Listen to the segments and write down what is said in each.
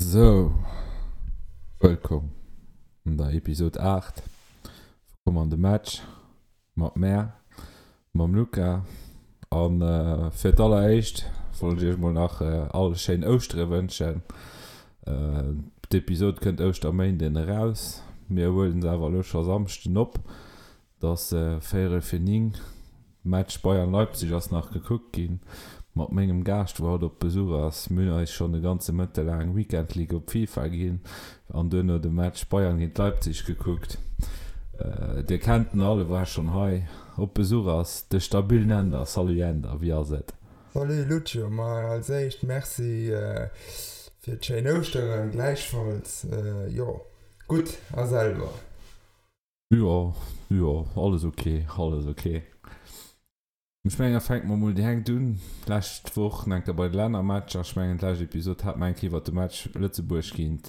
Sou, wëllkomm an der Episode 8 vu Komm an de Match mat mär, mam Luca. An fir d'alleréischt wollt ech iech mol nach all schéin Ouschtere wënschen. D'Episode kënnt Ouschterméinden eraus, mir huelen se awer elo scho Samschden op. Et ass véierel fir 9, Match Bayern-Leipzig ass nach gekuckt ginn mat mengem Gaascht wou haut op Besuch ass. Mir hunn eis schonn e ganze Mëtte laang Weekend League op FIFA ginn an duerno de Match Bayern géint Leipzig gekuckt. Dir kennt en all, e war schonn hei op Besuch ass de stabillen Änder. Salut Änder, wéi ass et? Salut Lucio, ma als éischt Merci fir d'schéin Ouschteren, gläichfalls. Jo gutt a selwer? Jo, jo, alles ok, alles ok. Ech mengen, da fänke mer mol direkt un. D'lescht Woch nach eng Kéier bei de Lännermatcher. Ech mengen, d'lescht Episod hate mer eng Kéier iwwert de Match Lëtzebuerg géint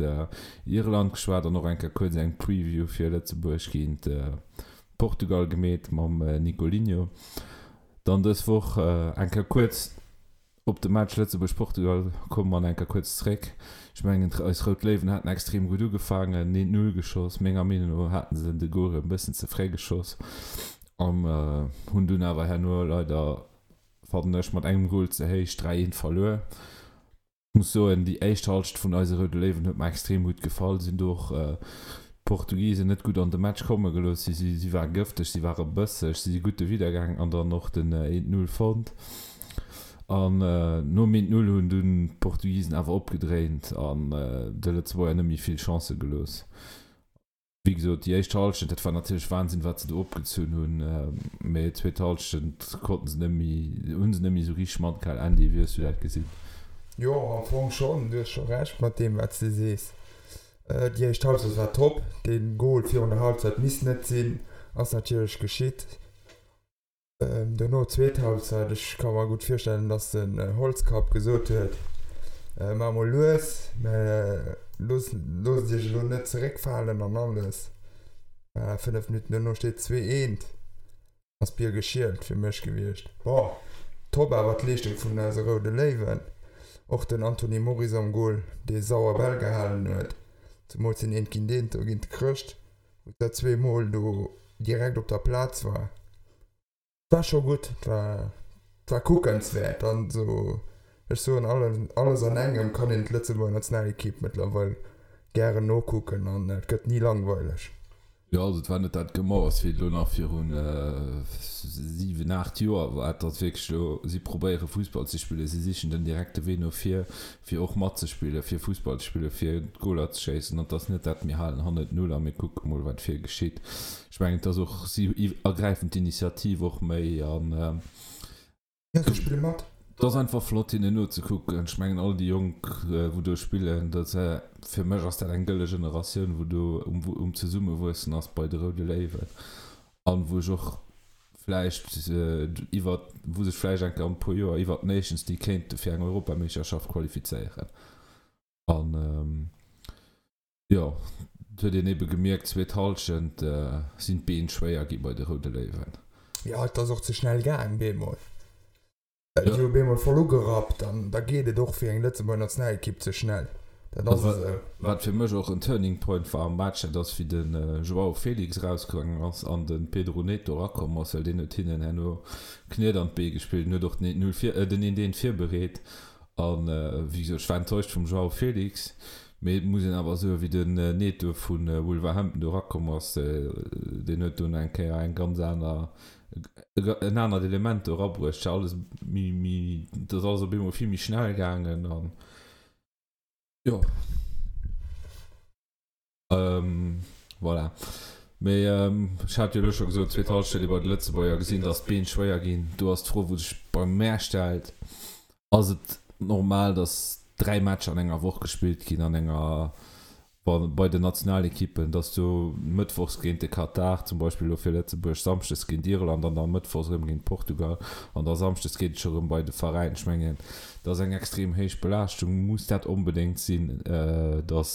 Irland geschwat an och eng Kéier kuerz eng Preview fir Lëtzebuerg géint Portugal gemeet mam Nicolinho. Dann dës Woch eng Kéier kuerz Op de Match Lëtzebuerg-Portugal komme mer nach eng Kéier kuerz zréck. Ech mengen, eis Rout Léiwen haten extrem gutt ugefaangen, een Null geschoss. Menger Meenung no haten se de Gol e bëssen ze fréi geschoss an hunn dunn awer herno leider, fannen ech, mat engem Gol ze héich 3, 1 verluer. Ech muss soen, déi éischt Halschent vun eise Roude Léiwen huet mer extrem gutt gefall. Si hunn do och d'Portugisen net gutt an de Match komme gelooss. Si si ware gëfteg, si ware bësseg, si si gutt dowidder gaangen an dann och den 1, 0 fonnt. An nom 1, 0 hunn dunn d'Portugisen awer opgedréint an de Lëtzebuerger net méi vill Chancë gelooss. Wéi gesot, déi éischt Hallschent, dat war natierlech Wahnsinn, wat se do opgezunn hunn, mee d'zweet Hallschent konnten se net méi, hu se net méi esou richteg matgehal. Andy, wéi hues du dat gesinn? Jo, am Fong schonn. Du hues scho Recht mat deem, wat s de sees. Déi éischt Halbzeit war top. Dee Gol virun der Halbzeit misst net sinn, ass natierlech geschitt. Dono zweet Halbzeit, ech ka mer gutt virstellen, dass den Holzkapp gesot huet, Maach mol lues, mä loosst iech elo net zeréckfalen an alles. Voilà, 5 Minutten dono steet 2, eent, ass d'Bier geschielt fir mech gewiescht. Bon, top awer d'Leeschtung vun eise Roude Léiwen, och den Anthony Moris am Gol, dee sauer Bäll gehalen huet, zemools den eent géint eent do géint de Chrëscht. wou dat zweemol do direkt op der Plaz war, war scho gutt, war war kuckenswäert an esou. Ech soen alles an engem kann een d'Lëtzebuerger Nationalekipp mëttlerweil gären nokucken an et gëtt ni langweileg. Jo, also et war net dat Gemauers wéi et elo nach virun 7, 8 Joer war. Et ass wierklech elo, si probéiere Fussball ze spillen, si sichen den direkte Wee no vir, fir och matzespillen, fir Fussball ze spillen, fir Goler ze schéissen. An et ass net dat, mir halen hannen d'Null a mir kucke mol, wat vir geschitt. Ech mengen, et ass och, si ergräifen d'Initiativ och méi an. Jo, si spille mat. Et ass einfach flott, hinnen nozekucken. Ech mengen, all déi Jonk, wou do spillen, dat, fir mech ass dat eng gëlle Generatioun, wou do um Zesummewuessen ass bei de Roude Léiwen an wou ech och vläicht iwwer, wou sech vläicht eng Kéier an e puer Joer iwwer d'Nations League kéinte fir eng Europameeschterschaft qualifizéieren. An jo, et huet een ebe gemierkt, zweet Hallschent sinn d'Been schwéier gi bei de Roude Léiwen. Jo, et ass och ze schnell gaang bemol. Déi hu bemol voll ugerappt an da geet et och fir eng Lëtzebuerger Nationalekipp ze schnell. Dat ass esou. Wat fir mech och en Turning Point war am Match, dat ass wéi de Joao Felix erausgaangen ass an de Pedro Neto erakomm ass, well deen huet hinnen herno Kniet an d'Bee gespillt an huet och den 1-0 vir, den 1-1 virbereet. A wéi gesot, ech war enttäuscht vum Joao Felix, mee et muss een awer soen, wéi den Neto vu Wolverhampton do erakomm ass, deen huet dunn eng Kéier eng ganz aner, en anert Element do erabruecht, et war alles méi, méi, et ass alles op eemol vill méi schnell gaangen an jo. Voilà. Mee ech hat jo elo scho gesot, zweet Halschent huet ee bei de Lëtzebuerger gesinn, datt d'Been schwéier ginn. Do ass d'Fro, wou sech bei mär stellt, Ass et normal, datt 3 Matcher an enger Woch gespillt ginn an enger bei den Nationalekippen, datt du mëttwochs géint de Katar zum Beispill elo fir Lëtzebuerg, samschdes géint Irland an da mëttwochs erëm géint Portugal an da samschdes geet et scho erëm bei de Veräin. Ech mengen, dat ass eng extrem héich Belaaschtung. Muss dat onbedéngt sinn, datt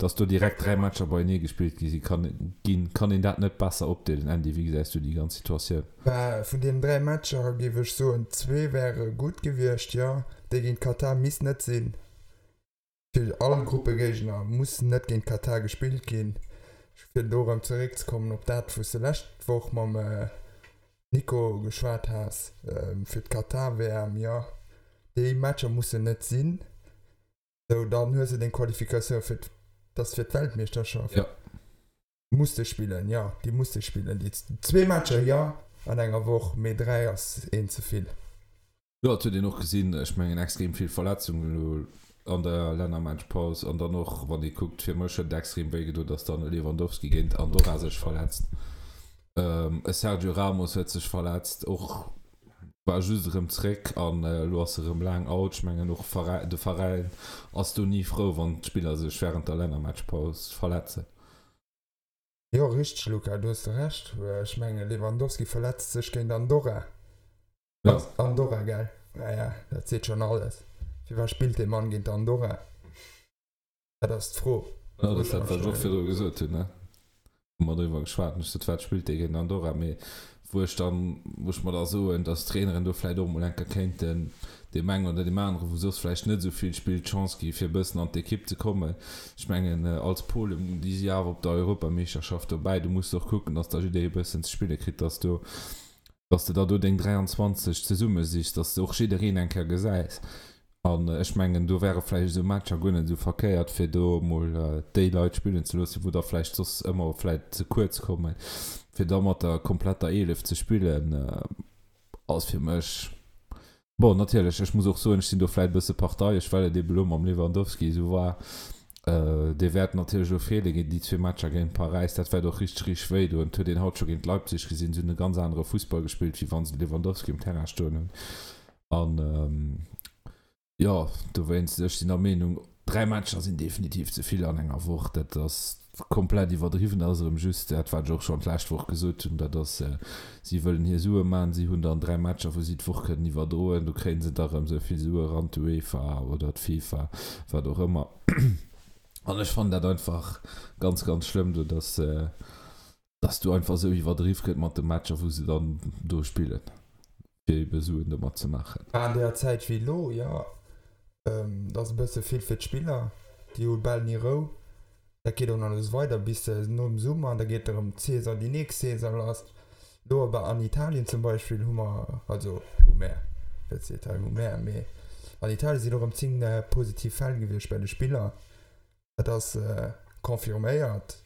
datt do direkt 3 Matcher beienee gespillt gi si kann ginn? Kann een dat net besser opdeelen? Andy, wéi gesäis du déi ganz Situatioun? Bah, vun deenen 3 Matcher géif ech soen, zwee wäre gutt gewiescht, jo. Dee géint Katar misst net sinn. Fir all Gruppegéigner muss net géint Katar gespillt ginn. Fir do erëm zeréckzekommen op dat, wou s de lescht Woch mam Nico geschwat has, fir d'Katar-WM, jo, déi Matcher mussen net sinn. Sou, dann hues de deng Qualifikatioun fir, dat ass fir d'Weltmeeschterschaft. Jo. Muss de spillen, jo, déi muss de spillen. Déi zwee Matcher, jo, an enger Woch, mee 3 ass een ze vill. Jo, et huet een och gesinn, ech mengen extrem vill Verletzungen elo an der Lännermatchpaus an dann och wann ee kuckt, fir mech huet et extrem wéi gedoen, datt dann e Lewandowski géint Andorra sech verletzt, e Sergio Ramos huet sech verletzt, och war just erëm zréck an elo ass e rëm laang out. Ech mengen och de Veräin ass do ni frou, wann d'Spiller sech wärend der Lännermatchpaus verletzen. Jo, richteg Luca, do hues de Recht. Ech mengen Lewandowski verletzt sech géint Andorra. Ja. Andorra, gell? Ja, ja, dat seet schonn alles. Firwat spillt dee Mann géint Andorra? Dat ass d'Fro. Ja, dat ass dat, wat ech och virdru gesot hunn, ne? Wou mer driwwer geschwat hunn. Ech sot, wat spillt dee géint Andorra? Mee wou ech dann, wou ech mer da soen, datt d'Traineren do vläicht och emol eng Kéier kéinten deem engen oder deem aneren, wou soss vläicht net esou vill spillt, d'Chance gi fir e bëssen an d'Ekipp ze kommen. Ech mengen, als Polen, déi si awer op der Europameeschterschaft dobäi, do muss de och kucken, datt da jidderee e bëssen ze spille kritt, datt do dass de der do deng 23 zesummesichs, dass de och jiddereen eng Kéier gesäis. An ech mengen, do wäre vläicht esou Matcher guer net esou verkéiert, fir do emol déi Leit spillen ze loossen, wou der vläicht soss ëmmer vläicht ze kuerz kommen. Fir da mat der kompletter 11 ze spillen, ass fir mech Bon, natierlech, ech muss och soen, ech sinn do vläit e bësse parteiesch, well et ebe lo mam Lewandowski esou war. Dee wäert natierlech elo feele géint déi zwee Matcher géint Paräis. Dat wäert och richteg, richteg wéi doen. Et huet een haut scho géint Leipzig gesinn, si hunn e ganz anere Fussball gespillt, wéi wa se de Lewandowski um Terrain stoen hunn. An jo, dowéinst, ech sinn der Meenung, 3 Matcher sinn definitiv ze vill an enger Woch. Dat ass komplett iwwerdriwwen. Dat ass erëm just dat, wat ech och schonn d'lescht Woch gesot hunn. Dat ass, si wëllen hir Sue maachen. Si hunn dann 3 Matcher, wou si d'Woch kënnen iwwerdroen. Do kréie se da erëm esou vill Sue eran, d'UEFA oder d'FIFA, wat och ëmmer. An ech fannen dat einfach ganz, ganz schlëmm do, dass, dass do einfach esou iwwerdriww gëtt mat de Matcher, wou se dann do spillen. fir ebe Suen domat ze maachen. An deeër Zäit wéi elo, jo, dat ass e bësse vill fir d'Spiller, déi hu bal ni Rou. Dat geet och nach esou weider bis nom Summer, da geet erëm d'Saison, déi nächst Saison lass. Elo awer an Italien zum Beispill hu mer, also hu mär, net ze Italien hu mär, mee an Italien sinn och erëm 10 positiv Fäll gewiescht bei de Spiller. Dat ass confirméiert.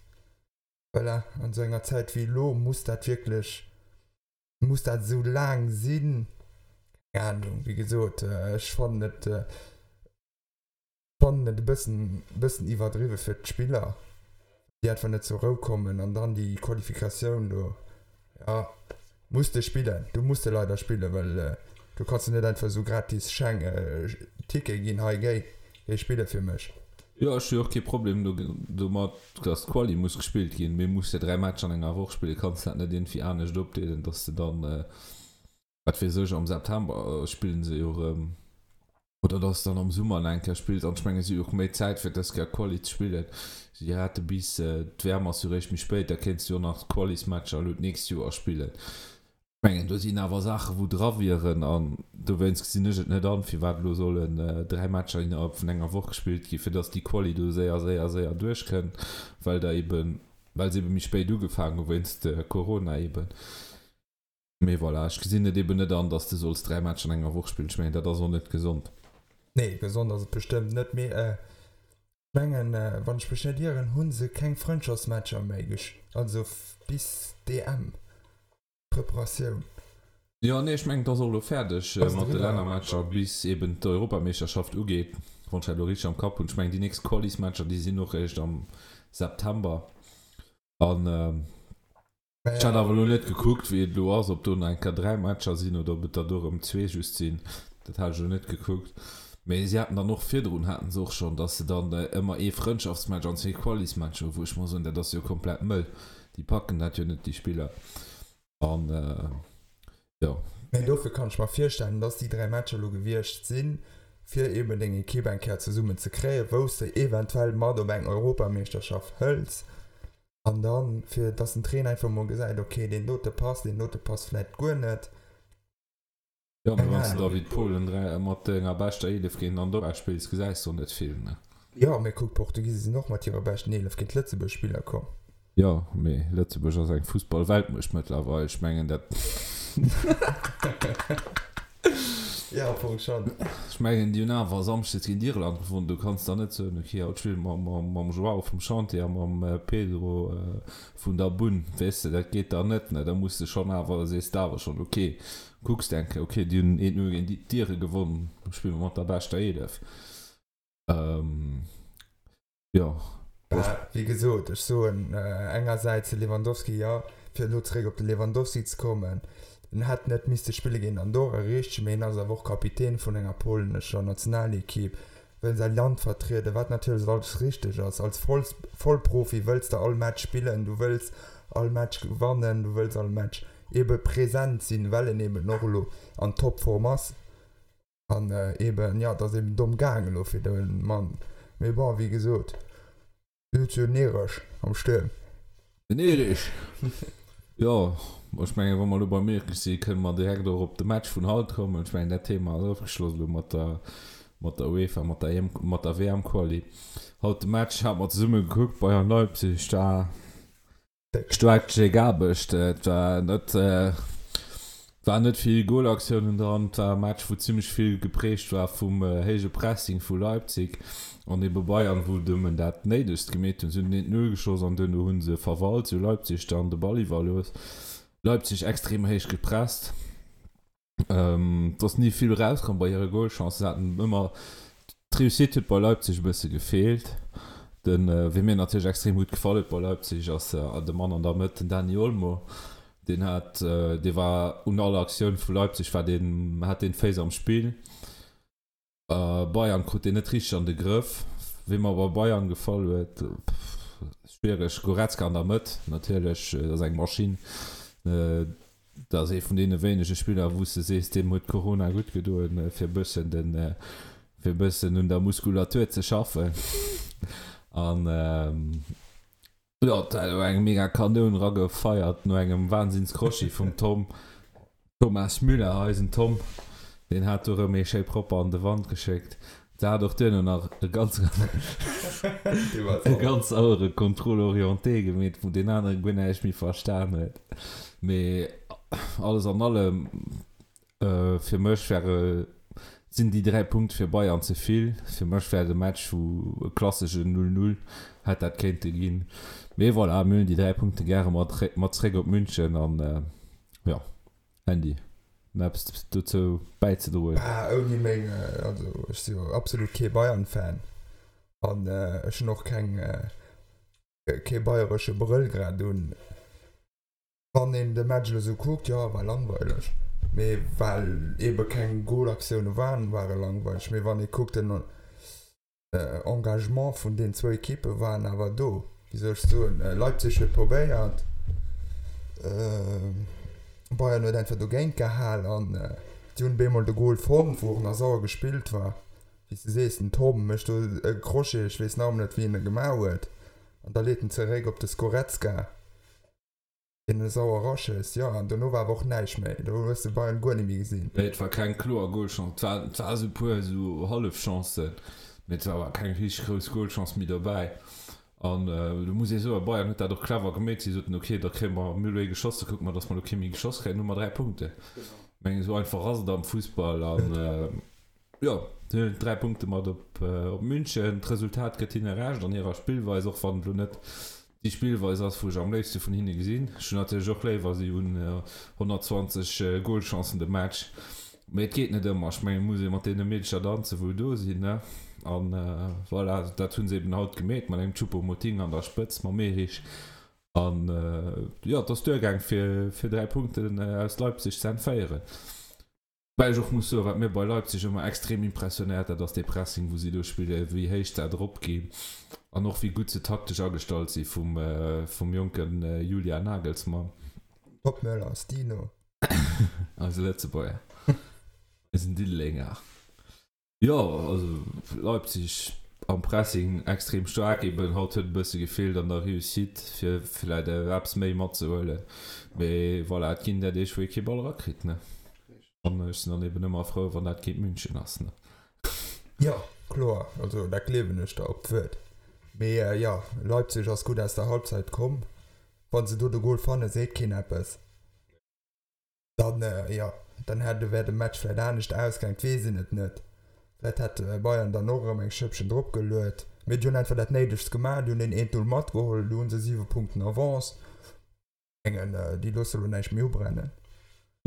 Voilà, an esou enger Zäit wéi elo muss dat wierklech Muss dat esou laang sinn? Keng Ahnung, wéi gesot, ech fannen et fannen et e bëssen bëssen iwwerdriwwe fir d'Spiller, déi einfach net zur Rou kommen an dann déi Qualifikatioun do, jo, muss de spillen, du muss de leider spillen, well du kanns de net einfach esou gratis Scheng Ticket ginn, hei géi, géi spille fir mech. Jo, ech hu jo och kee Problem domat, dass d'Quali muss gespillt ginn, mee muss de 3 Matcher an enger Woch spillen? Kanns de dat net iergendwéi anescht opdeelen, dass de dann, wat weess ech, am September spillen se jo erëm, oder dass de dann am Summer nach eng Kéier spills? An ech mengen, si hu jo och méi Zäit fir dës Kéier Quali ze spillen. Si hate bis, d'WM ass jo réischt méi spéit, da kéints de jo och nach d'Qualismatcher elo d'nächst Joer spillen. Ech mengen, do sinn awer Saachen, wou dra wieren, an dowéinst gesinn ech et net an, firwat elo sollen 3 Matcher innerhalb vun enger Woch gespillt ginn, fir datt déi Quali do séier, séier, séier duerchkënnt, well der eben, well se ebe méi spéit ugefaangen hu wéinst Corona eben. Mee voilà, ech gesinn et eben net an, datt s de solls 3 Matcher an enger Woch spillen. Ech mengen, dat ass och net gesond. Nee, gesond ass et bestëmmt net, mee ech mengen, wann ech mech net ieren, hu se keng Frëndschaftsmatcher méi, also bis d'EM. Preparatioun. Jo, nee, ech mengen, et ass och elo fäerdeg mat de Lännermatcher, bis eben d'Europameeschterschaft ugeet, wann ech dat elo richteg am Kapp hunn. Ech mengen, déi nächst Qualismatcher, déi sinn och eréischt am September. An ech hat awer elo net gekuckt, wéi et elo ass, ob do nach eng Kéier 3 Matcher sinn oder ob et der do erëm zwee just sinn. Dat hat ech elo net gekuckt. Mee si haten dann och virdrun haten se och schonn, datt se dann ëmmer ee Frëndschaftsmatch an zwee Qualismatcher hu, wou ech mer soen, dat ass jo komplett mëll. Déi packen dat jo net, déi Spiller. An jo. Mä dofir kann ech mer virstellen, dass déi 3 Matcher elo gewiescht sinn, fir eben deng Ekipp eng Kéier zesummen ze kréien, wou s de eventuell mat op eng Europameeschterschaft hëls. An dann, fir dass den Trainer einfach mol gesäit, okay, deen dote passt, deen dote passt vläicht guer net. Jo, mee wann s de da wéi d'Polen mat denger beschter 11 géint Andorra spills, gesäis de och net vill, ne? Jo, mee kuck, d'Portugise sinn och mat hirer beschten 11 géint Lëtzebuerg spille komm. Jo, mee Lëtzebuerg ass eng Fussball-Weltmuecht mëttlerweil. Ech mengen dat. Jo, am Fong schonn. Ech mengen, déi hunn awer Samschdes géint Irland gewonnen. Du kanns dann net soen, ok, haut spille mer mam Joao vum Chantier a mam Pedro vun der Bunn. Weess de, dat geet dann net, ne? Da muss de schonn awer, sees de awer schonn, ok, kucks de eng Kéier, ok, déi hunn 1, 0 géint d'Ire gewonnen, spille mer mat der beschter 11. Jo. Bah, wéi gesot, ech soen engersäits de Lewandowski, jo, fir elo zeréck op de Lewandowski ze kommen, en hätt net misste spille géint Andorra, richteg, mee en ass awer och Kapitän vun enger polnescher Nationalekipp, wëll säi Land vertrieden, wat natierlech alles richteg ass. Als Vollprofi wëlls de all Match spillen, du wëlls all Match gewannen, du wëlls all Match ebe present sinn, well en eben och elo an Topform ass. An eben, jo, et ass eben domm gaang elo fir de Mann. Mee bon, wéi gesot, du hues jo den Erich am Stuerm. Den Erich! Jo, ech mengen, wa mer elo beim Erich sinn, kënne mer direkt och op de Match vun haut kommen. Ech mengen, dat Thema ass ofgeschloss elo mat der, mat der UEFA, mat der EM, mat der WM-Quali. Haut de Match hate mer zesumme gekuckt, Bayern Leipzig, da Staark Jake Aarbecht, et war net war net vill Golaktiounen dran. Et war e Match wou zimmlech vill geprägt war vum héije Pressing vu Leipzig an ebe Bayern wou nëmmen dat néidegst gemeet hunn. Si hunn den 1, 0 geschoss an duerno hu se verwalt, si hu Leipzig dann de Ball iwwerlooss. Leipzig extrem héich gepresst. Et ass ni vill erauskomm bei hire Golchancen. Se haten ëmmer, d'Réussite huet bei Leipzig e bësse gefeelt. Den, wee mir natierlech extrem gutt gefall huet bei Leipzig, ass de Mann an der Mëtt, den Dani Olmo. Deen hat, dee war un all Aktioun vu Leipzig war deen, hat deen d'Féiss am Spill. Bayern krut deen net richteg an de Grëff. Wee mer bei Bayern gefall huet, schwiereg, Goretzka an der Mëtt natierlech, dat ass eng Maschinn. Dat ass ee vun deene wéinege Spiller, wou s de sees, deem huet Corona gutt gedoen, fir e bëssen den, fir e bëssen un der Muskulatur ze schaffen. An Jo, et hat elo eng mega Kanoun ragefeiert no engem Wahnsinns-Crochet vum Tom, Thomas Müller, eisen Tom, deen hat do rëm ee schéi propper an de Wand geschéckt. Se hat och duerno nach e ganz e ganz sauere Contrôle orienté gemeet, wou deen anere guer näischt méi verstan huet. Mee alles an allem Fir mech wäre sinn déi 3 Punkte fir Bayern ze vill. Fir mech wär de Match wou e klasseschen 0, 0 hätt dat kéinte ginn. Mee voilà, mir hunn déi 3 Punkte gäre mat mat zréck op München an jo, Andy, nach eppes dozou bäizedroen? Bah, ouni meng, also ech si jo absolut kee Bayern-Fan an ech hunn och keng kee bayeresche Brëll grad un. Wann een de Match elo sou kuckt, jo, war langweileg. Mee well eebe keng Golaktioune waren, war e langweileg. Mee wann ee kuckt, den Engagement vun den zwou Ekippe waren awer do. Wéi soll ech soen, Leipzig huet probéiert, Bayern huet einfach dogéint gehal an si hunn bemol de Gol fonnt, wou och nach sauer gespillt war. Wéi s de sees, den Tom mécht do e Crochet, ech weess nach ëmmer net, wéi en e gemaach huet, an da leet en zeréck op de Skorecka. Deen e sauer raschéisst, jo, an dono war awer och näischt méi, do hues de Bayern guer net méi gesinn. Nee, et war keng kloer Golchance, et war, et war esou puer esou Hallefchancen, mee et war awer keng richteg grouss Golchance méi dobäi. An do muss ee soen, Bayern huet dat och clever gemeet, si soten, ok, da kréie mer, mir hu elo ee geschoss, da kucke mer, datt mer elo kee méi geschoss kréien, hu mer 3 Punkten. Ech mengen, esou einfach ass et am Fussball an jo, si huelen 3 Punkte mat op München. D'Resultat gëtt hinne Recht an hirer Spillweis, och wann et elo net déi Spillweis ass, wou ech am léifste vun hinne gesinn. Ech hunn natierlech och léiwer, si hunn 120 Golchancen de Match, mee et geet net ëmmer. Ech mengen, et muss ee mat deene Meedercher danzen, wou do sinn, ne? An voilà, dat hu se eben haut gemeet mat engem Choupo-Moting an der Spëtz, mam Erich. An jo, et ass duergaang, fir 3 Punkten aus Leipzig ze entféieren. Woubäi ech och muss soen, wat mir bei Leipzig ëmmer extrem impressionéiert, dat ass dee Pressing, wou si do spillen, wéi héich se drop ginn an och wéi gutt se taktesch agestallt si vum, vum jonke Julian Nagelsmann. Top Möller, Stino. Eise Lëtzebuerger, eisen Diddelenger. Jo, also Leipzig am Pressing extrem staark eben. Haut huet e bësse gefeelt an der Réussite fir villäit eppes méi matzehuelen. Mee voilà, et ginn der Deeg wou ee kee Ball erakritt ne. An ech sinn dann eben ëmmer frou wann dat géint München ass ne. Jo. Kloer, also dat gleewen ech der op d'Wuert. Mee jo, Leipzig ass gutt aus der Halbzeit komm. Wa se do de Gol fannen, seet keen eppes. Dann, jo, dann hätt, wär de Match vläit anescht ausgaang, et weess een et net. Vläit hätt Bayern dann och erëm eng Schëppchen drop geluet. Mee déi hunn einfach dat Néidegst gemaach, déi hunn deen 1, 0 matgeholl, elo hu se 7 Punkten Avance. Mengen, déi loosse lo näischt méi ubrennen.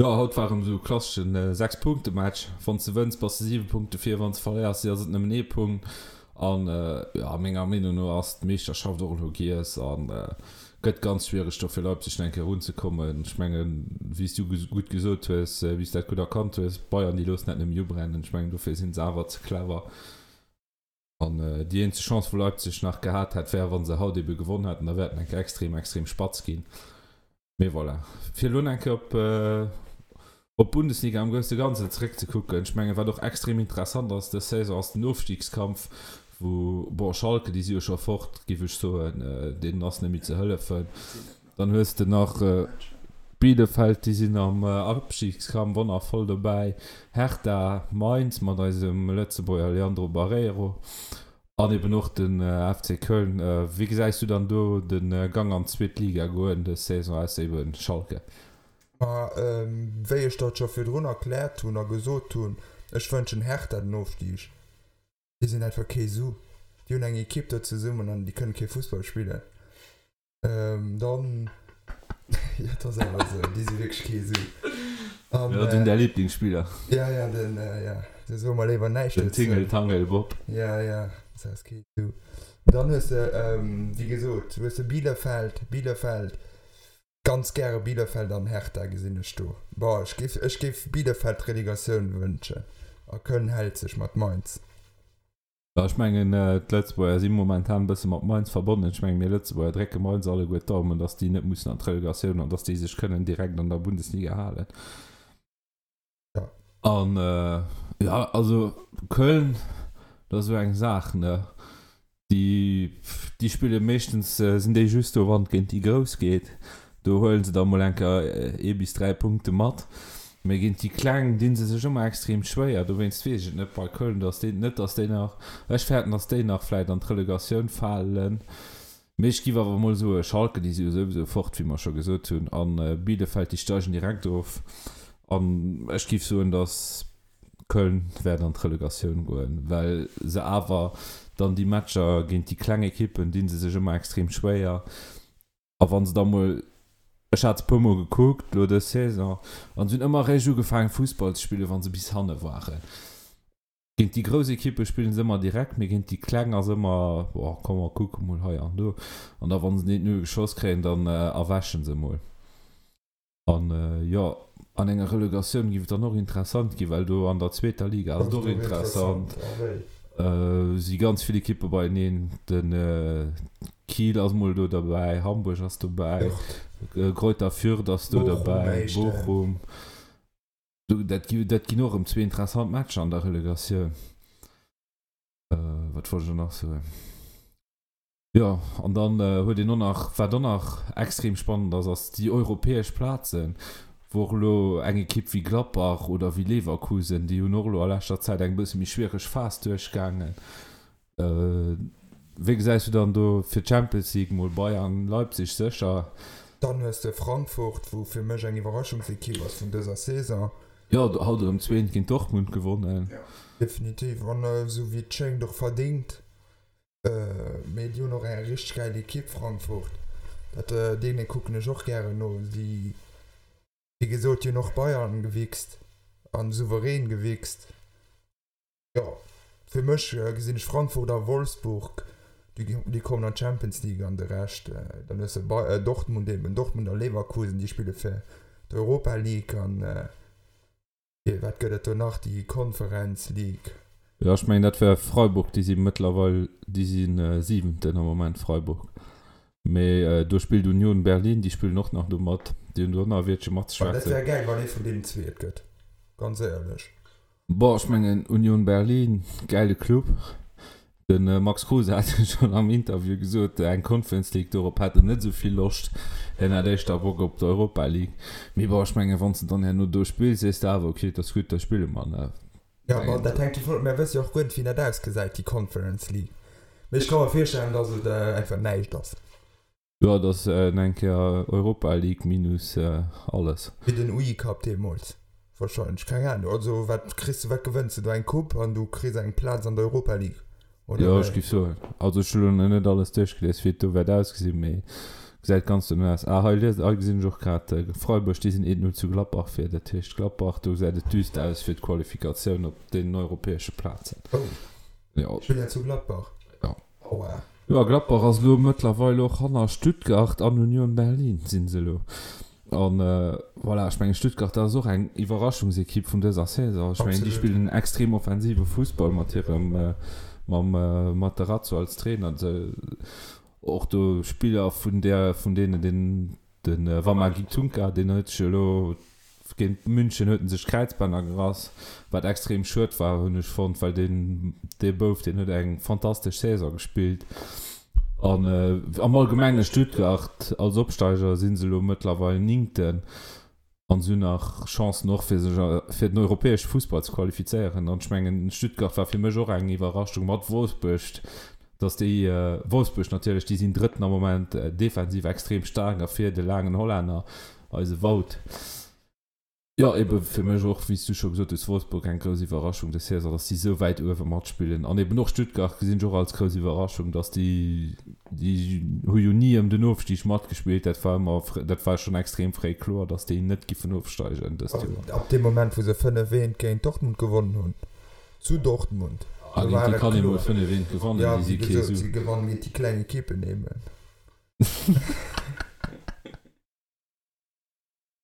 Jo, haut war erëm esou e klasseschen 6 Punkte Match. Wann s de wënns, bass de 7 Punkte vir, wann s de verléiers, ass et nëmmen ee Punkt. An jo, menger Meenung no ass d'Meeschterschaft och elo giess an gëtt ganz schwiereg do fir Leipzig nach eng Kéier erunzekommen. Ech mengen, wéi s du gutt gesot hues, wéi s dat gutt erkannt hues, Bayern déi loossen dat net méi ubrennen. Ech mengen, dofir si se awer ze clever. An déi eenzeg Chance wou Leipzig nach gehat hätt, wär wa se haut ebe gewonn hätten, da wär et eng Kéier extrem, extrem spatz ginn. Mee voilà. Fir elo eng Kéier op op d'Bundesliga am grousse Ganzen zeréckzekucken, ech mengen wat och extrem interessant ass dës Saison ass den Ofstiegskampf, wou, bon Schalke déi si jo scho fort, géif ech soen, deenen ass net méi ze hëllefen. Dann hues de nach Bielefeld, déi sinn am Abstiegskampf och nach voll dobäi, Hertha, Mainz mat eisem Lëtzebuerger Leandro Barreiro an eben och den FC Köln. Wéi gesäis du dann do de Gang an d'zweet Liga goen dës Saison, ausser eben Schalke? Ma wéi ech dat scho virdrun erkläert hunn a gesot hunn, ech wënschen Hertha den Ofstig. Déi sinn einfach kee Su. Déi hunn eng Ekipp do zesummen an déi kënnen kee Fussball spillen. Dann, jo, et ass awer esou, déi si wierklech kee Su. An, Jo, den däi Lieblingsspiller. Ja, ja, den, ja, do soe mer léiwer näischt Den dozou. Tingle Tangle Bob. Ja, ja, dat ass kee Su. Dann hues de, wéi gesot, hues de Bielefeld, Bielefeld, ganz gäre Bielefeld an Hertha gesinn ech do. Boah, ech géif, ech géif Bielefeld d'Relegatioun wënschen a Köln hält sech mat Mainz. Jo, ech mengen, d'Lëtzebuerger si momentan e bësse mat Mainz verbonnen. Ech mengen, mir Lëtzebuerger drécke Mainz alleguer d'Daumen, datt déi net mussen an d'Relegatioun an datt déi sech kënnen direkt an der Bundesliga halen. Jo. An, jo, also Köln, dat ass esou eng Saach, ne? Déi, déi spille meeschtens, sinn déi just do, wann et géint déi Grouss geet. Do huele se da mol eng Kéier ee bis 3 Punkte mat. Mee géint déi Kleng dinn se sech ëmmer extrem schwéier. Dowéinst weess ech et net bei Köln, dass déi, net dass déi nach, ech fäerten, dass déi nach vläit an d'Relegatioun falen. Mee ech giff awer mol soe Schalke, déi si jo souwisou fort, wéi mer scho gesot hunn, a Bielefeld, déi steigen direkt of. An ech giff soen, dass Köln wäert an d'Relegatioun goen, well se awer dann déi Matcher géint déi kleng Ekippen dinn se sech ëmmer extrem schwéier. A wann se da mol, ech hat se puer mol gekuckt lo dës Saison, an se hunn ëmmer eréischt ugefaangen Fussball ze spillen, wann se bis hanne waren. Géint déi grouss Ekippe spillen se ëmmer direkt, mee géint déi kleng ass ëmmer, oh komm mer kucke mol hei an do. An da wann se den 1-0 geschoss kréien, dann erwächen se mol. An jo, an enger Relegatioun giff et dann och interessant ginn, well do an der zweeter Liga ass et och interessant. Si ganz vill Ekippe beieneen. De Kiel ass mol do derbäi, Hamburg ass dobäi, Greuther Fürth ass do derbäi, Bochum. Dat ginn och erëm zwee interessant Matcher an der Relegatioun. Wat wollt ech elo nach soen? Jo, an dann huet een och nach, wat och nach extrem spannend ass, ass déi europäesch Plazen, wou och elo eng Ekipp wéi Gladbach oder wéi Leverkusen, déi hunn och elo a leschter Zäit eng bësse méi schwiereg Phas duerchgaangen. Wéi gesäis du dann do fir d'Champions League mol Bayern, Leipzig sécher? Dann hues de Frankfurt, wou fir mech eng Iwwerraschungsekipp ass vun dëser Saison. Jo, haut erëm zweent géint Dortmund gewonnen. Definitiv, an esou wéi et schéngt och verdéngt. Mee déi hunn och eng richteg gäil Ekipp, Frankfurt. Dat, deene kucken ech och gären no. Déi, wéi gesot, déi hunn och Bayern gewichst an souverän gewichst. Jo, fir mech gesinn ech Frankfurt a Wolfsburg, déi, déi kommen an d'Champions League an de Rescht, dann hues de Bay-, Dortmund eben, Dortmund a Leverkusen, déi spille fir d'Europa League an. Wat gëtt et do nach? Déi Conference League. Jo, ech mengen dat wär Freiburg, déi si mëttlerweil, déi si Siwenten am Moment, Freiburg. Mee do spillt Union Berlin, déi spillen och nach do mat, déi hunn do och nach e Wiertche matzeschwätzen. Dat wär gäil, wann ee vun deenen zwee et gëtt, ganz éierlech. Bon, ech mengen Union Berlin, gäile Club. De Max Kruse hat jo schonn am Interview gesot, eng Conference League, dorop hätt en net esou vill Loscht. Hien hätt éischter Bock op d'Europa League. Mee bon, ech mengen, wann s de dann herno do spills, sees de awer, ok, et ass gutt, da spille mer. Jo, ma dat hänkt dovun of, mär wësse jo och guer net, wéi dat ausgesäit, déi Conference League. Mee ech ka mer virstellen, dass et einfach näischt ass. Jo, et ass eng Kéier Europa League minus alles. Wéi den UI Cup deemools wahrscheinlech, keng Ahnung. Also wat kriss du, wat gewënns du do? Eng Coupe an du kriss eng Plaz an der Europa League, oder Jo, ech wéi? géif soen. Also ech hu lo nach net alles duerchgelies, wéi et do wäert ausgesinn, mee gesäit ganz dono aus. Ah, hei lies, hei gesinn ech och grad, Freiburg, déi sinn 1-0 zu Gladbach vir. Dat heescht Gladbach, do gesäit et düster aus fir d'Qualifikatioun op deenen europäesche Plazen. Oh, Jo. Spillen zu Gladbach? Jo. Aua. Jo, Gladbach ass elo mëttlerweil och hanner Stuttgart an Union Berlin sinn se elo. An voilà, ech mengen Stuttgart, dat ass och eng Iwwerraschungsekipp vun dëser Saison. Ech mengen déi spillen en extrem offensive Fussball mat hirem, mam Materazzo als Trainer. Och do Spiller vun där, vun deenen den De Wamagi Tunka, deen huet sech elo géint München huet en sech d'Kräizbänner gerass, wat extrem schued war, hunn ech fonnt, well deen dee Bouf, deen huet eng fantastesch Saison gespillt. An am Allgemenge Stuttgart als Opsteiger si se elo mëttlerweil Néngten an se hunn nach Chancen och fir sech fir den europäesche Fussball ze qualifizéieren. An ech mengen Stuttgart war fir mech och eng Iwwerraschung mat Wolfsburg, Dass déi, Wolfsburg natierlech, déi sinn Drëtten am Moment, defensiv extrem staark a vir de laangen Hollänner, eise Wout. Jo, ebe fir mech och, wéi s du scho gesot hues, Wolfsburg eng grouss Iwwerraschung dës Saison, dass déi esou wäit uewe matspillen. An eben och Stuttgart gesinn ech och als grouss Iwwerraschung, dass déi, déi hu jo ni ëm den Ofstig matgespillt, dat war ëmmer, dat war schonn extrem fréi kloer, dass déi net giffen ofsteigen dëst Joer. Ab deem Moment, wou se 5, 1 géint Dortmund gewonnen hunn. Zu Dortmund. Ah, géint déi kann ee mol 5 eent gewannen, déi si kee Su. Si gewannen géint déi kleng Ekippen eben.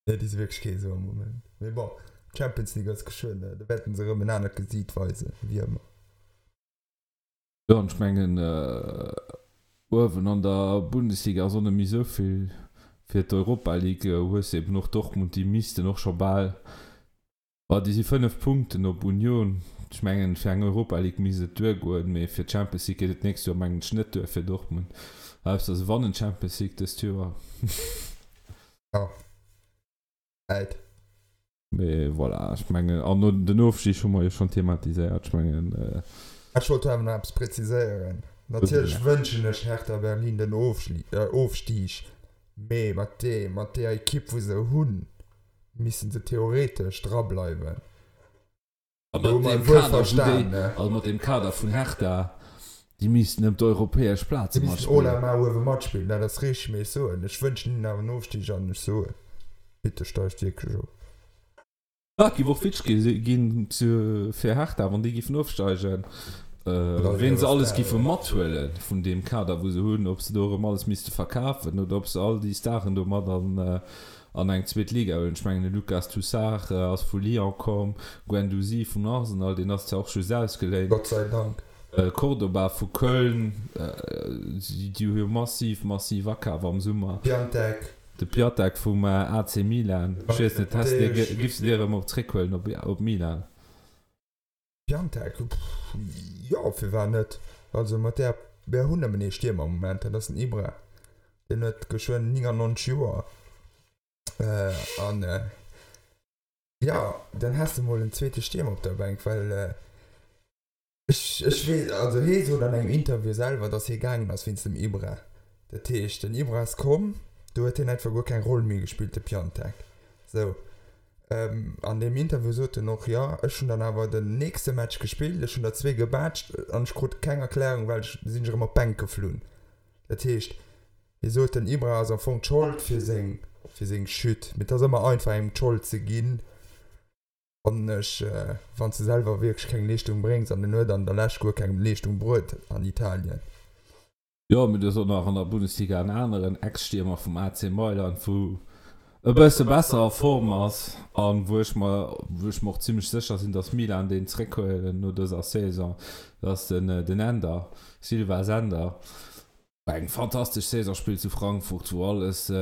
Nee, déi si wierklech kee Su am Moment. Mee bon, d'Champions League ass geschwënn, do wäerten se erëm en anert Gesiit weisen, wéi ëmmer. Jo, an ech mengen, uewen an der Bundesliga ass och net méi esou vill. Fir d'Europa League hues de eben och Dortmund, déi missten och scho bal Ma déi si 5 Punkten op Union. Ech mengen, fir eng Europa League misst et duergoen, mee fir d'Champions League geet et d'nächst Joer mengen ech net duer fir Dortmund. Ausser se wannen d'Champions League dëst Joer. Jo, Zäit. Mee voilà, ech mengen, an den Ofstig hu mer jo schonn thematiséiert. Ech mengen. Ech wollt awer nach eppes präziséieren. Natierlech wënschen ech Hertha Berlin den Ofstig, mee mat deeër Ekipp wou se hunn, Missten se theoretesch dra bleiwen. A mat deem Kader, wou déi, also mat deem Kader vun Hertha, déi missten ëm d'europäesch Plaze matspillen. Déi missten all la main uewe matspillen, dat ass richteg. Mee ech soen, ech wënschen hinnen awer en Ofstig an ech soen, bitte steigt wierklech of. Et géif och witzeg ginn fir Hertha, wann déi géifen ofsteigen, ween se alles géife mathuelen vun deem Kader, wou se hunn, ob se do erëm alles misste verkafen oder ob se all déi Staren do mat an an eng zweet Liga huelen. Ech mengen de Lucas Tousart ass vu Lyon komm, Guendouzi vun Arsenal, deen ass zwar och just ausgeléint. Gott sei Dank. Cordoba vu Köln, déi hu jo massiv, massiv akaf am Summer. Piatek. De Piatek vum AC Milan. Ech weess net, häss de, giffs de dee erëm och zréckhuelen op Milan? Piatek, jo, firwat net? Also mat där, mär hunn nëmmen ee Stiermer am Moment, dat ass den Ibra. Deen huet geschwënn 99 Joer. An jo, dann häss de mol en zweete Stiermer op der Bänk, well ech, ech weess, also hee sot an engem Interview selwer, datt hie gaangen ass wéinst dem Ibra. Dat heescht, den Ibra ass komm, do huet hien einfach guer keng Roll méi gespillt, de Piatek. Sou. An deem Interview sot en och, jo, ech hunn dann awer den nächste Match gespillt, ech hunn der zwee gebaatscht an ech krut keng Erklärung, well ech sinn ech erëm op d'Bänk geflunn. Dat heescht, hie sot, den Ibra ass am Fong d'Schold fir seng, fir seng Chute. Mee et ass ëmmer einfach, engem d'Schold ze ginn, fannen ech, wann s de selwer wierklech keng Leeschtung bréngs. An en huet an der Lescht guer keng Leeschtung bruet an Italien. Jo, mee do ass och nach an der Bundesliga en aneren Ex-Stiermer vum AC Mailand, wou e bësse besser a Form ass a wou ech mer, wou ech mer och zimmlech sécher sinn, datt Milan deen zréckhuelen no dëser Saison. Dat ass den den Ender, Silva Sender, eng fantastesch Saison spillt zu Frankfurt, wou alles,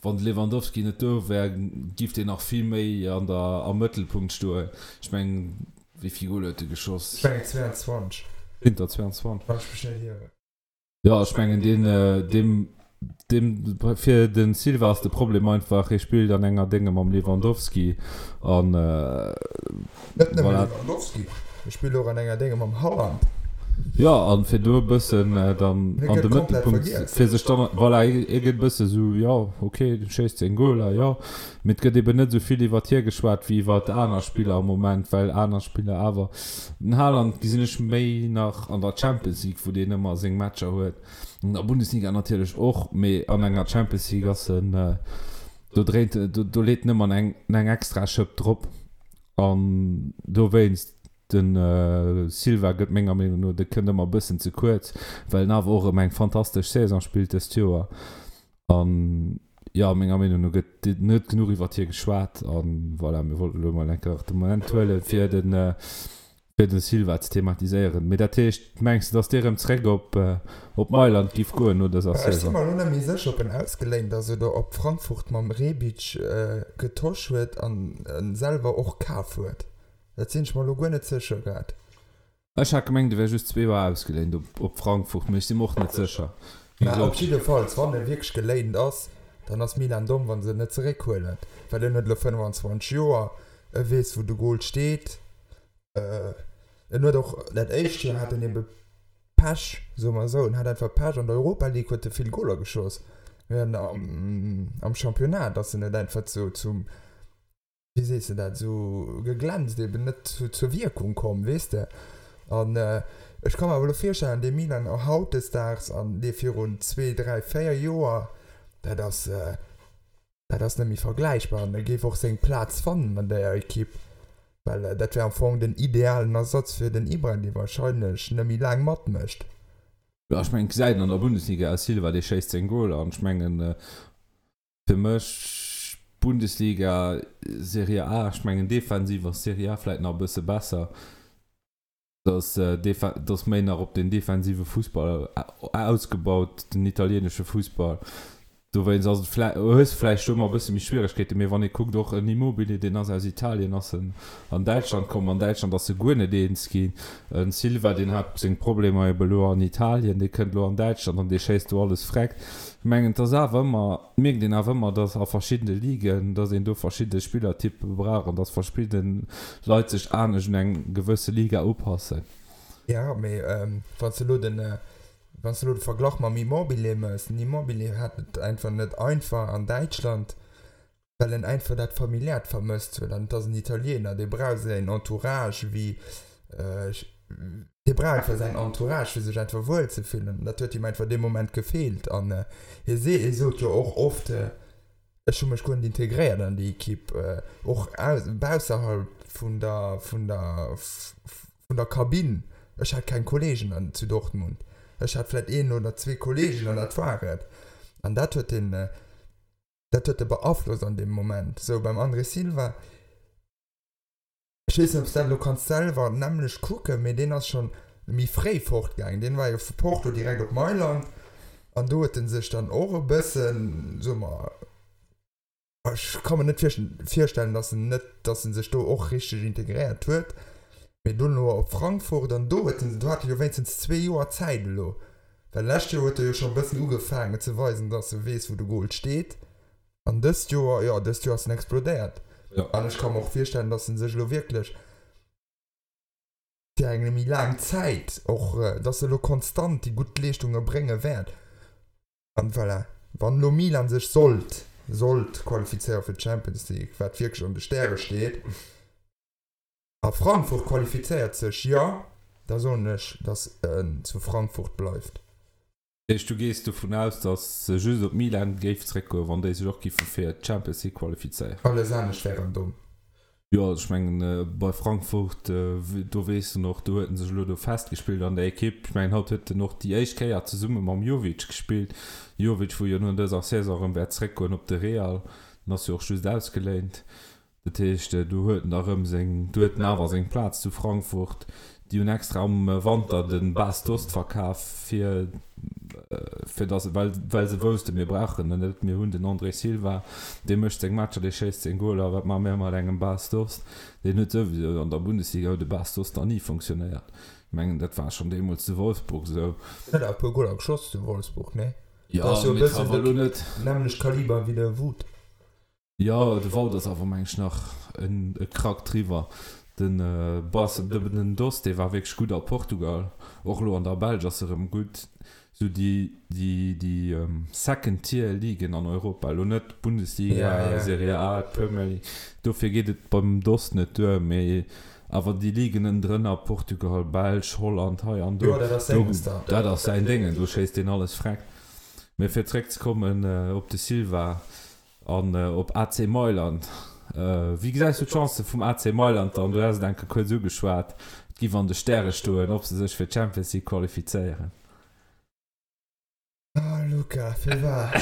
wann de Lewandowski net do wär, giff deen nach vill méi an der, am Mëttelpunkt stoen. Ech mengen, Wéi vill Goler huet e geschoss? Ech mengen 22. Sinn der 22? Wann ech mech net ieren. Jo, ech mengen deen, deem. Dem, fir den Silva ass de Problem einfach, hie spillt an enger Dénge mam Lewandowski an Net nëmme voilà. Lewandowski, hie spillt och an enger Dénge mam Haaland. Jo, an fir do e bëssen dann an de Mëttelpunkt, fir sech dann, voilà, hie gëtt e bësse sou, jo, ok, du schéisst seng Goler, jo, mee et gëtt eben net esou vill iwwert hie geschwat wéi iwwert aner Spiller am Moment, well aner Spiller awer, den Haaland gesinn ech méi nach an der Champions League, wou deen ëmmer seng Matcher huet. An der Bundesliga natierlech och, mee an enger Champions League ass en, do dréint, do leet en ëmmer eng eng extra Schëpp drop. An dowéinst, de Silva gëtt menger Meenung no, de kënnt ëmmer e bëssen ze kuerz, well en awer och erëm eng fantastesch Saison spillt dëst Joer. An jo, menger Meenung no gëtt net genuch iwwert hie geschwat. An voilà, mir wollten elo mol eng Kéier de Moment huelen, fir den fir den Silva ze thematiséieren. Mee dat heescht, mengs de, datt dee rëm zréck op op Mailand giff goen no dëser Ech si Saison? mer elo net méi sécher, ob en ausgeléint ass oder ob Frankfurt mam Rebic getosch huet an en selwer och kaf huet. Dat sinn ech mer elo guer net sécher grad. Ech hat gemengt, e wär just zwee Joer ausgeléint op op Frankfurt, mee ech si mer och net sécher. Wéi Mä op gesot. jiddefalls, wann e wierklech geléint ass, dann ass Milan domm, wa se en net zeréckhuelen, well en huet elo 25 Joer, e weess wou de Gol steet. En huet och dat éischt Joer hat en ebe Pech, soe mer esou, en hat einfach Pech. An der Europa League huet e vill Goler geschoss, mee an am Championnat ass en net einfach zu, zum, wéi sees de dat, esou geglänzt, eben net zur Wierkung komm, weess de. An ech ka mer awer elo virstellen, dee Milan hautdesdaags an dee virun zwee, dräi, véier Joer, dat ass, Dat ass net méi vergläichbar an e géif och seng Plaz fannen an där Ekipp, well dat wär am Fong den idealen Ersatz fir den Ibra, dee warscheinlech net méi laang matmécht. Jo, ech mengen, et gesäit een an der Bundesliga aus, Silva, dee schéisst seng Goler an ech mengen, fir mech Bundesliga, Serie A, ech mengen defensiv ass Serie A vläit nach e bësse besser. Dass dass méi nach op den defensive Fussball ausgebaut, den italienesche Fussball. Dowéinst ass et vläi hues de vläicht do ëmmer e bësse méi Schwieregkeeten. Mee wann ee kuckt, och en Immobile, deen ass aus Italien, ass en an Däitschland komm. An Däitschland ass e guer net eens ginn. En Silva, deen hat seng Problemer ebe lo an Italien, dee kënnt lo an Däitschland an dee schéisst do alles vreckt. Ech mengen, et ass awer ëmmer, mierkt een awer ëmmer, dass a verschiddene Ligen, dass een do verschidde Spillertyppe brauch an dass verschidde Leit sech anescht un eng gewësse Liga upassen. Jo, mee wann s de elo den, wann s de elo de Verglach mam Immobile méchs, den Immobile hat et einfach net einfach an Däitschland, well en einfach dat Familiäert vermësst huet an et ass en Italiener, dee brauch säin Entourage wéi, dee brauch einfach säin Entourage fir sech einfach wuel ze fillen an dat huet him einfach dee Moment gefeelt an hie see, hie sot jo och oft, ech hu mech guer net integréiert an déi Ekipp, och bausserhalb vun der, vun der, vun der Kabinn, ech hat keng Kolleegen an zu Dortmund, ech hat vläit een oder zwee Kolleegen an dat war et an dat huet en, dat huet e beaflosst an deem Moment. Sou beim André Silva, ech weess net ob s dat elo kanns selwer nämmlecht kucken, mee deen ass schonn méi fréi fortgaangen, deen war jo vu Porto direkt op Mailand an do huet en sech dann och e bëssen, soe mer, ech ka mer net virstellen, datt en net, datt en sech do och richteg integréiert huet, mee dono op Frankfurt an do huet en, do hat e jo wéinstens zwee Joer Zäit elo, Well lescht Joer huet e jo scho e bëssen ugefaangen ze weisen, dass e weess, wou de Goal steet. An dëst Joer, jo, dëst Joer ass en explodéiert. Jo. An ech ka mer och virstellen, dass en sech elo wierklech fir eng méi laang Zäit och, dass e elo konstant déi gutt Leeschtunge brénge wäert. An voilà, wann elo Milan sech sollt, sollt qualifizéiere fir d'Champions League, wat wierklech an de Stäre steet, A Frankfurt qualifizéiert sech, jo, da soen ech, datt en zu Frankfurt bleift. Dat heescht, du gees dovun aus, datt se just op Milan géif zréckgoen, wann déi sech och giffe fir d'Champions League qualifizéieren? Alles anescht wär erëm domm. Jo, also ech mengen, bei Frankfurt, do weess en och, do huet en sech elo do festgespillt an der Ekipp. Ech mengen, haut huet en och déi éischt Kéier zesumme mam Jovic gespillt. Jovic, wou jo no dëser Saison erëm wäert zréckgoen op de Real, en ass jo och just ausgeléint. Dat heescht, do huet en da rëm seng, do huet en awer seng Plaz zu Frankfurt. Déi hunn extra am Wanter de Bas Dost verkaf, fir, fir dass, well, well se woussten, mir brauchen en net, mir hunn den André Silva, dee mécht seng Matcher, dee schéisst seng Goler, wat maache mir mat engem Bas Dost? Deen huet souwisou, an der Bundesliga huet de Bas Dost nach ni funktionéiert. Ech mengen, dat war schonn deemools zu Wolfsburg esou. Huet awer e puer Goler geschoss zu Wolfsburg, nee? Jo, ass jo e mee bëssen awer de elo net. nämmlecht Kaliber wéi de Wout. Jo, de Wout ass awer meng ech nach en e Krack driwwer. Den Bas, den Dost, dee war wierklech gutt a Portugal, och elo an der Belsch ass e rëm gutt. Sou déi, déi, déi Second Tier Ligen an Europa, elo net d'Bundesliga, Ja, ja. Serie A, d'Premier League, dofir geet et beim Dost net duer, mee awer déi Ligen ënnendrënner, Portugal, Belsch, Holland, hei an do, Jo, dat ass do, senges da. dat ass säin Déngen, do schéisst deen alles freck. Mee fir zréckzekommen op de Silva, An op AC Mailand. Wéi gesäis du d'Chancë vum AC Mailand dann? Du has et eng Kéier kuerz ugeschwat, et giff an de Stäre stoen, ob se sech fir d'Champions League qualifizéieren. Oh Luca, firwat?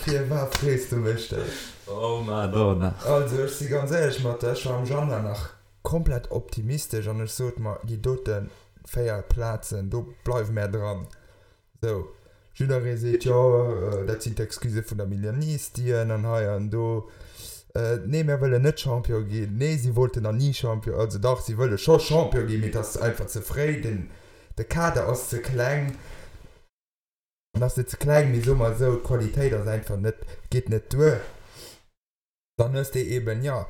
Firwat frees du mech dat? Oh Madonna. Also ech si ganz éierlech mat der, ech war am Januar nach komplett optimistesch an ech sot mer, déi dote 4 Plazen, do bleiwe mär dran. Sou, jidderee seet, jo, dat sinn d'Excusë vun der Milanistien an hei an do. Nee, mär wëllen net Champion ginn. Nee, si wollten nach ni Champion, also dach, si wëlle scho Champion ginn, mee et ass einfach ze fréi, den, de Kader ass ze kleng. En ass net ze kleng, mee soe mer esou, d'Qualitéit ass einfach net, geet net duer. Dann hues de eben, jo,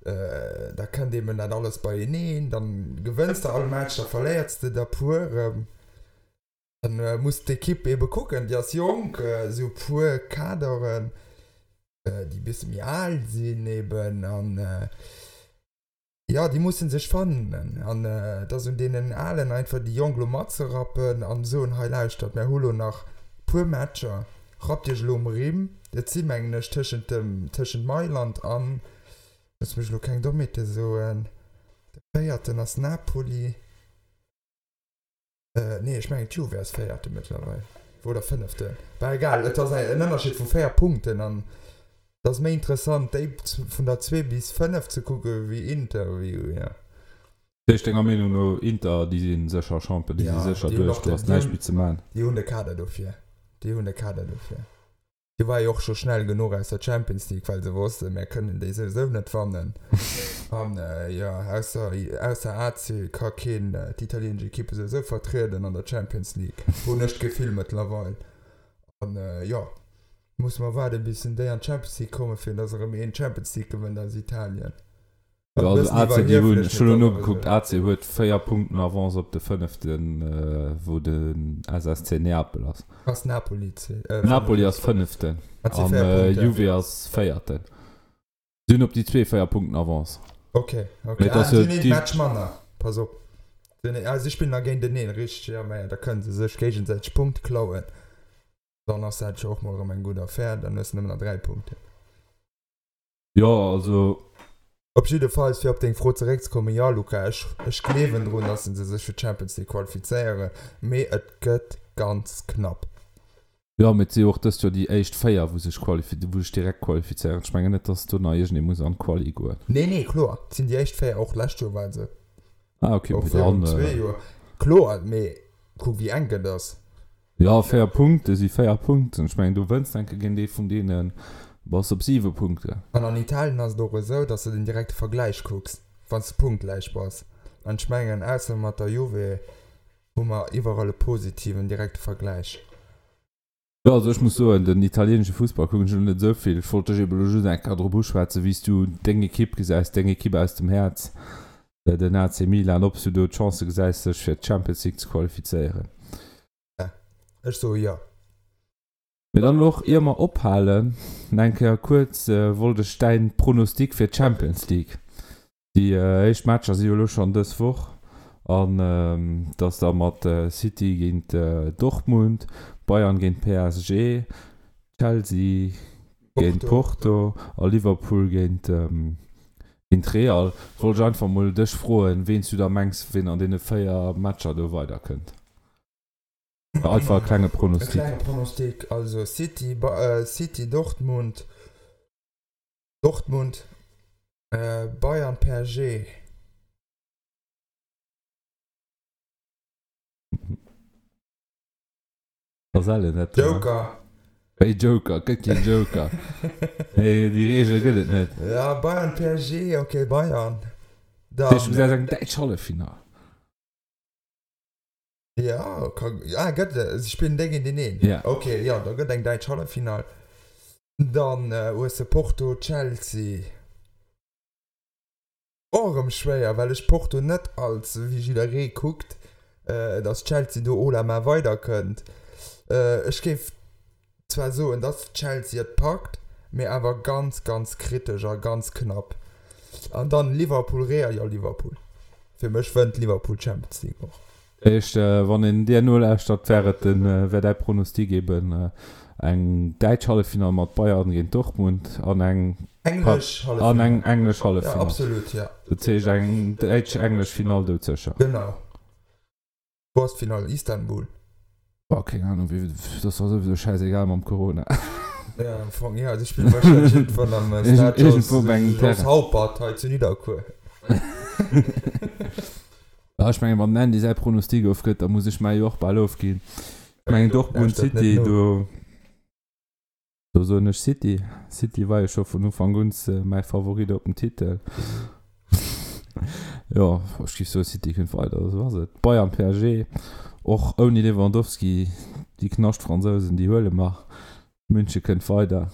da kënnt eben dat alles beieneen, dann gewënns de all Match, da verléiers de der puer erëm. Dann muss d'Ekipp ebe kucken, déi ass jonk, esou puer Kaderen, déi e bësse méi al sinn eben an jo, déi musse sech fannen an et ass un deenen Alen einfach déi Jonk elo matzerappen an soen, hei lauschtert, mär hu lo nach puer Matcher, rappt iech elo um Rimm. Et si mengen ech tëschent dem, tëschent Mailand an, looss mech elo keng Dommheete soen, de véierten ass Napoli. Nee, ech mengen d'Juve ass Véierte mëttlerweil. Oder Fënneften. Bah egal, et ass en Ënnerscheed vu 4 Punkten an et ass méi interessant déi vun der 2 bis 5 ze kucke wéi Inter wéi jo. Dat heescht denger Meenung no Inter déi si sécher Champion, déi si sécher duerch, do ass näischt méi ze man? Déi hunn de Kader dofir, déi hunn de Kader dofir. Déi war jo och scho schnell genuch aus der Champions League, well se wossten, mär kënnen déi souwisou net wannen. An jo, ausser, ausser AC ka keen d'italienesch Ekippe souwisou vertrieden an der Champions League, hunn ech d'Gefill mëttlerweil. An jo, musse mer waarden, bis déi an d'Champions League kommen, fir datt erëm een d'Champions League gewënnt aus Italien. Jo, also AC, déi hunn, ech hunn elo nogekuckt, AC huet 4 Punkten Avance op de fënneften, wou de SSC Neapel ass. Ass Napoli Napoli ass fënneften an Juve ass véierten. Si hunn op déi zwee 4 Punkten Avance. Ok, ok. Ah, si hunn een Match manner, pass op. Ah, si spillen da géinteneen, richteg, jo, mä da kënne se sech géigesäiteg Punkte klauen. Dann ass dat jo och mol erëm eng gutt Affär, dann hues de nëmmen nach 3 Punkten. Jo, also. Op jiddefalls, fir op deng Fro zeréckzekommen, jo Luca, ech, ech gleewen drun, dass se sech fir d'Champions League qualifizéieren, mee et gëtt ganz knapp. Jo, mee et si jo och dëst Joer déi éischt 4, wou sech qualifi-, wou sech direkt qualifizéieren. Ech mengen net, dass do nach iergendee muss an d'Quali goen. Nee, nee, kloer, et sinn déi éischt 4, och d'lescht Joer war et esou. Ah, okay, Och mee virun dann. zwee Joer. Kloer, mee kuck wéi enk et ass. Jo, 4 Punkte si 4 Punkten. Ech mengen, du wënns enke géint ee vun deenen, bass op 7 Punkten. An an Italien ass et och esou, datt s de den direkte Vergläich kucks, wann s de punktgläich bass. An ech mengen, ausser mat der Juve hu mer iwwerall e positiven direkte Vergläich. Jo, also ech muss soen, den italienesche Fussball kucken ech elo net esou vill. Ech wollt dech ebe elo just eng Kéier drop uschwätzen, wéi s du deng Ekipp gesäis, deng Ekipp aus dem Häerz, den AC Milan, ob s du do d'Chancë gesäis, sech fir d'Champions League ze qualifizéieren. Ech soe jo. Mee dann elo och, ier mer ophalen, nach eng Kéier kuerz, wollt ech däin Pronostic fir d'Champions League. Déi éischt Matcher si jo elo schonn dës Woch an et ass da mat City géint Dortmund, Bayern géint PSG, Chelsea géint Porto a Liverpool géint Real. Wollt ech einfach mol dech froen, ween s du da mengs, ween an deene 4 Matcher do weiderkënnt. Einfach e klenge Pronostic. E klenge Pronostic, also City, City, Dortmund, Dortmund, Bayern, PSG. Joker. Wéi Joker? Et gëtt keen Joker. Nee, déi Reegel gëtt et net. Ja, Bayern, PSG, ok, Bayern. Dann. Du gesäis eng däitsch Halleffinall. Ja, ka, ah, gëtt, se spillen déi géinteneen? Ja. Ok, jo, da gëtt eng däitsch Halleffinall. Dann hues de Porto, Chelsea. Och erëm schwéier, well ech Porto net als, wéi jidderee kuckt, dass Chelsea do haut la main weiderkënnt. Ech géif zwar soen, dass Chelsea et packt, mee awer ganz, ganz kritesch a ganz knapp. An dann Liverpool, Real, jo Liverpool. Fir mech wënnt Liverpool d'Champions League och. Éischt, wann een dir nolauschtert, wär et den, wär däi Pronostic eben eng däitsch Halleffinall mat Bayern géint Dortmund an eng Englesch Halleffinall. An eng englesch Halleffinall. Ja, absolut, ja. Dat heescht eng däitsch-englesch Finall doudsécher. Genau. Wou ass d'Finall? Istanbul? Boah, keng Ahnung, wéi, dat ass souwisou schäisegal mam Corona. Ja, am Fong, ja, si spillen wahrscheinlech iergendwann am Stade Iergendwou op engem Jos Terrain. Haupert hei zu Nidderkuer. Ja, ech mengen, wann den Andy säi Pronostic ofgëtt, da muss ech mäi jo och bal ofginn. Ech mengen, Dortmund Lauschtert net City, no. do, do soen ech City. City war jo scho vun Ufank un mäi Favorit op den Titel. Jo, ech géif soen, City kënnt weider, esou ass et. Bayern, PSG, och ouni Lewandowski, déi Knascht-Fransousen, déi huele mer. München kënnt weider.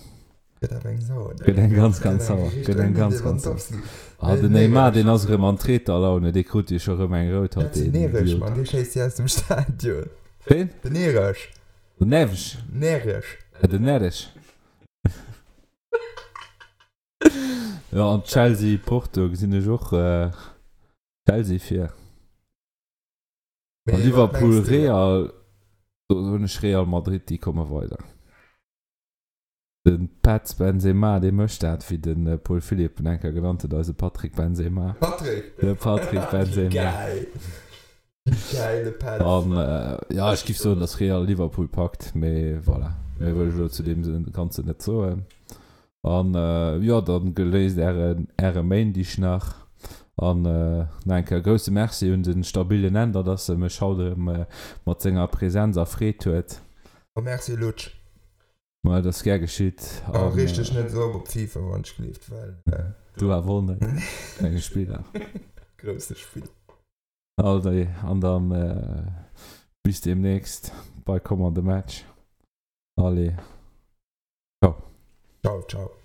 Gëtt awer eng sauer. Gëtt eng ganz, ganz sauer. Gëtt eng ganz, ganz sauer. Ah, den Neymar, deen ass erëm an Treterlaune, dee krut jo scho erëm eng rout haut, deen Idiot. Den Neres, Mann, dee schéisst si aus dem Stadion. Ween? Den Neres. Den Neves. Neres. Den Neres. Jo, an Chelsea, Porto gesinn ech och Chelsea vir. A Liverpool, Real, do soen ech Real Madrid, déi komme weider. De Petz Benzema, dee mécht dat, wéi de Paul Philipp en eng Kéier genannt huet, eise Patrick Benzema. Patrick! De Patrick Benzema. Geil! Geil, de Petz. An jo, ech géif soen, datt Real Liverpool packt, mee voilà, méi wëll ech elo zu deem Ganzen net soen. An jo, dann geléist ären äre Méindig nach. An nach eng Kéier grousse Merci un de stabilen Änder, dass e mech haut erëm mat senger Präsenz erfreet huet. A Merci Lutsch. Ma et ass gär geschitt. A reeg dech net esou op op FIFA, wann ech gleeft, well. Du awer och net, menge Spiller. Grousse Spiller. Allez, an dann bis demnächst bei kommende Match. Allez, ciao. Ciao, ciao.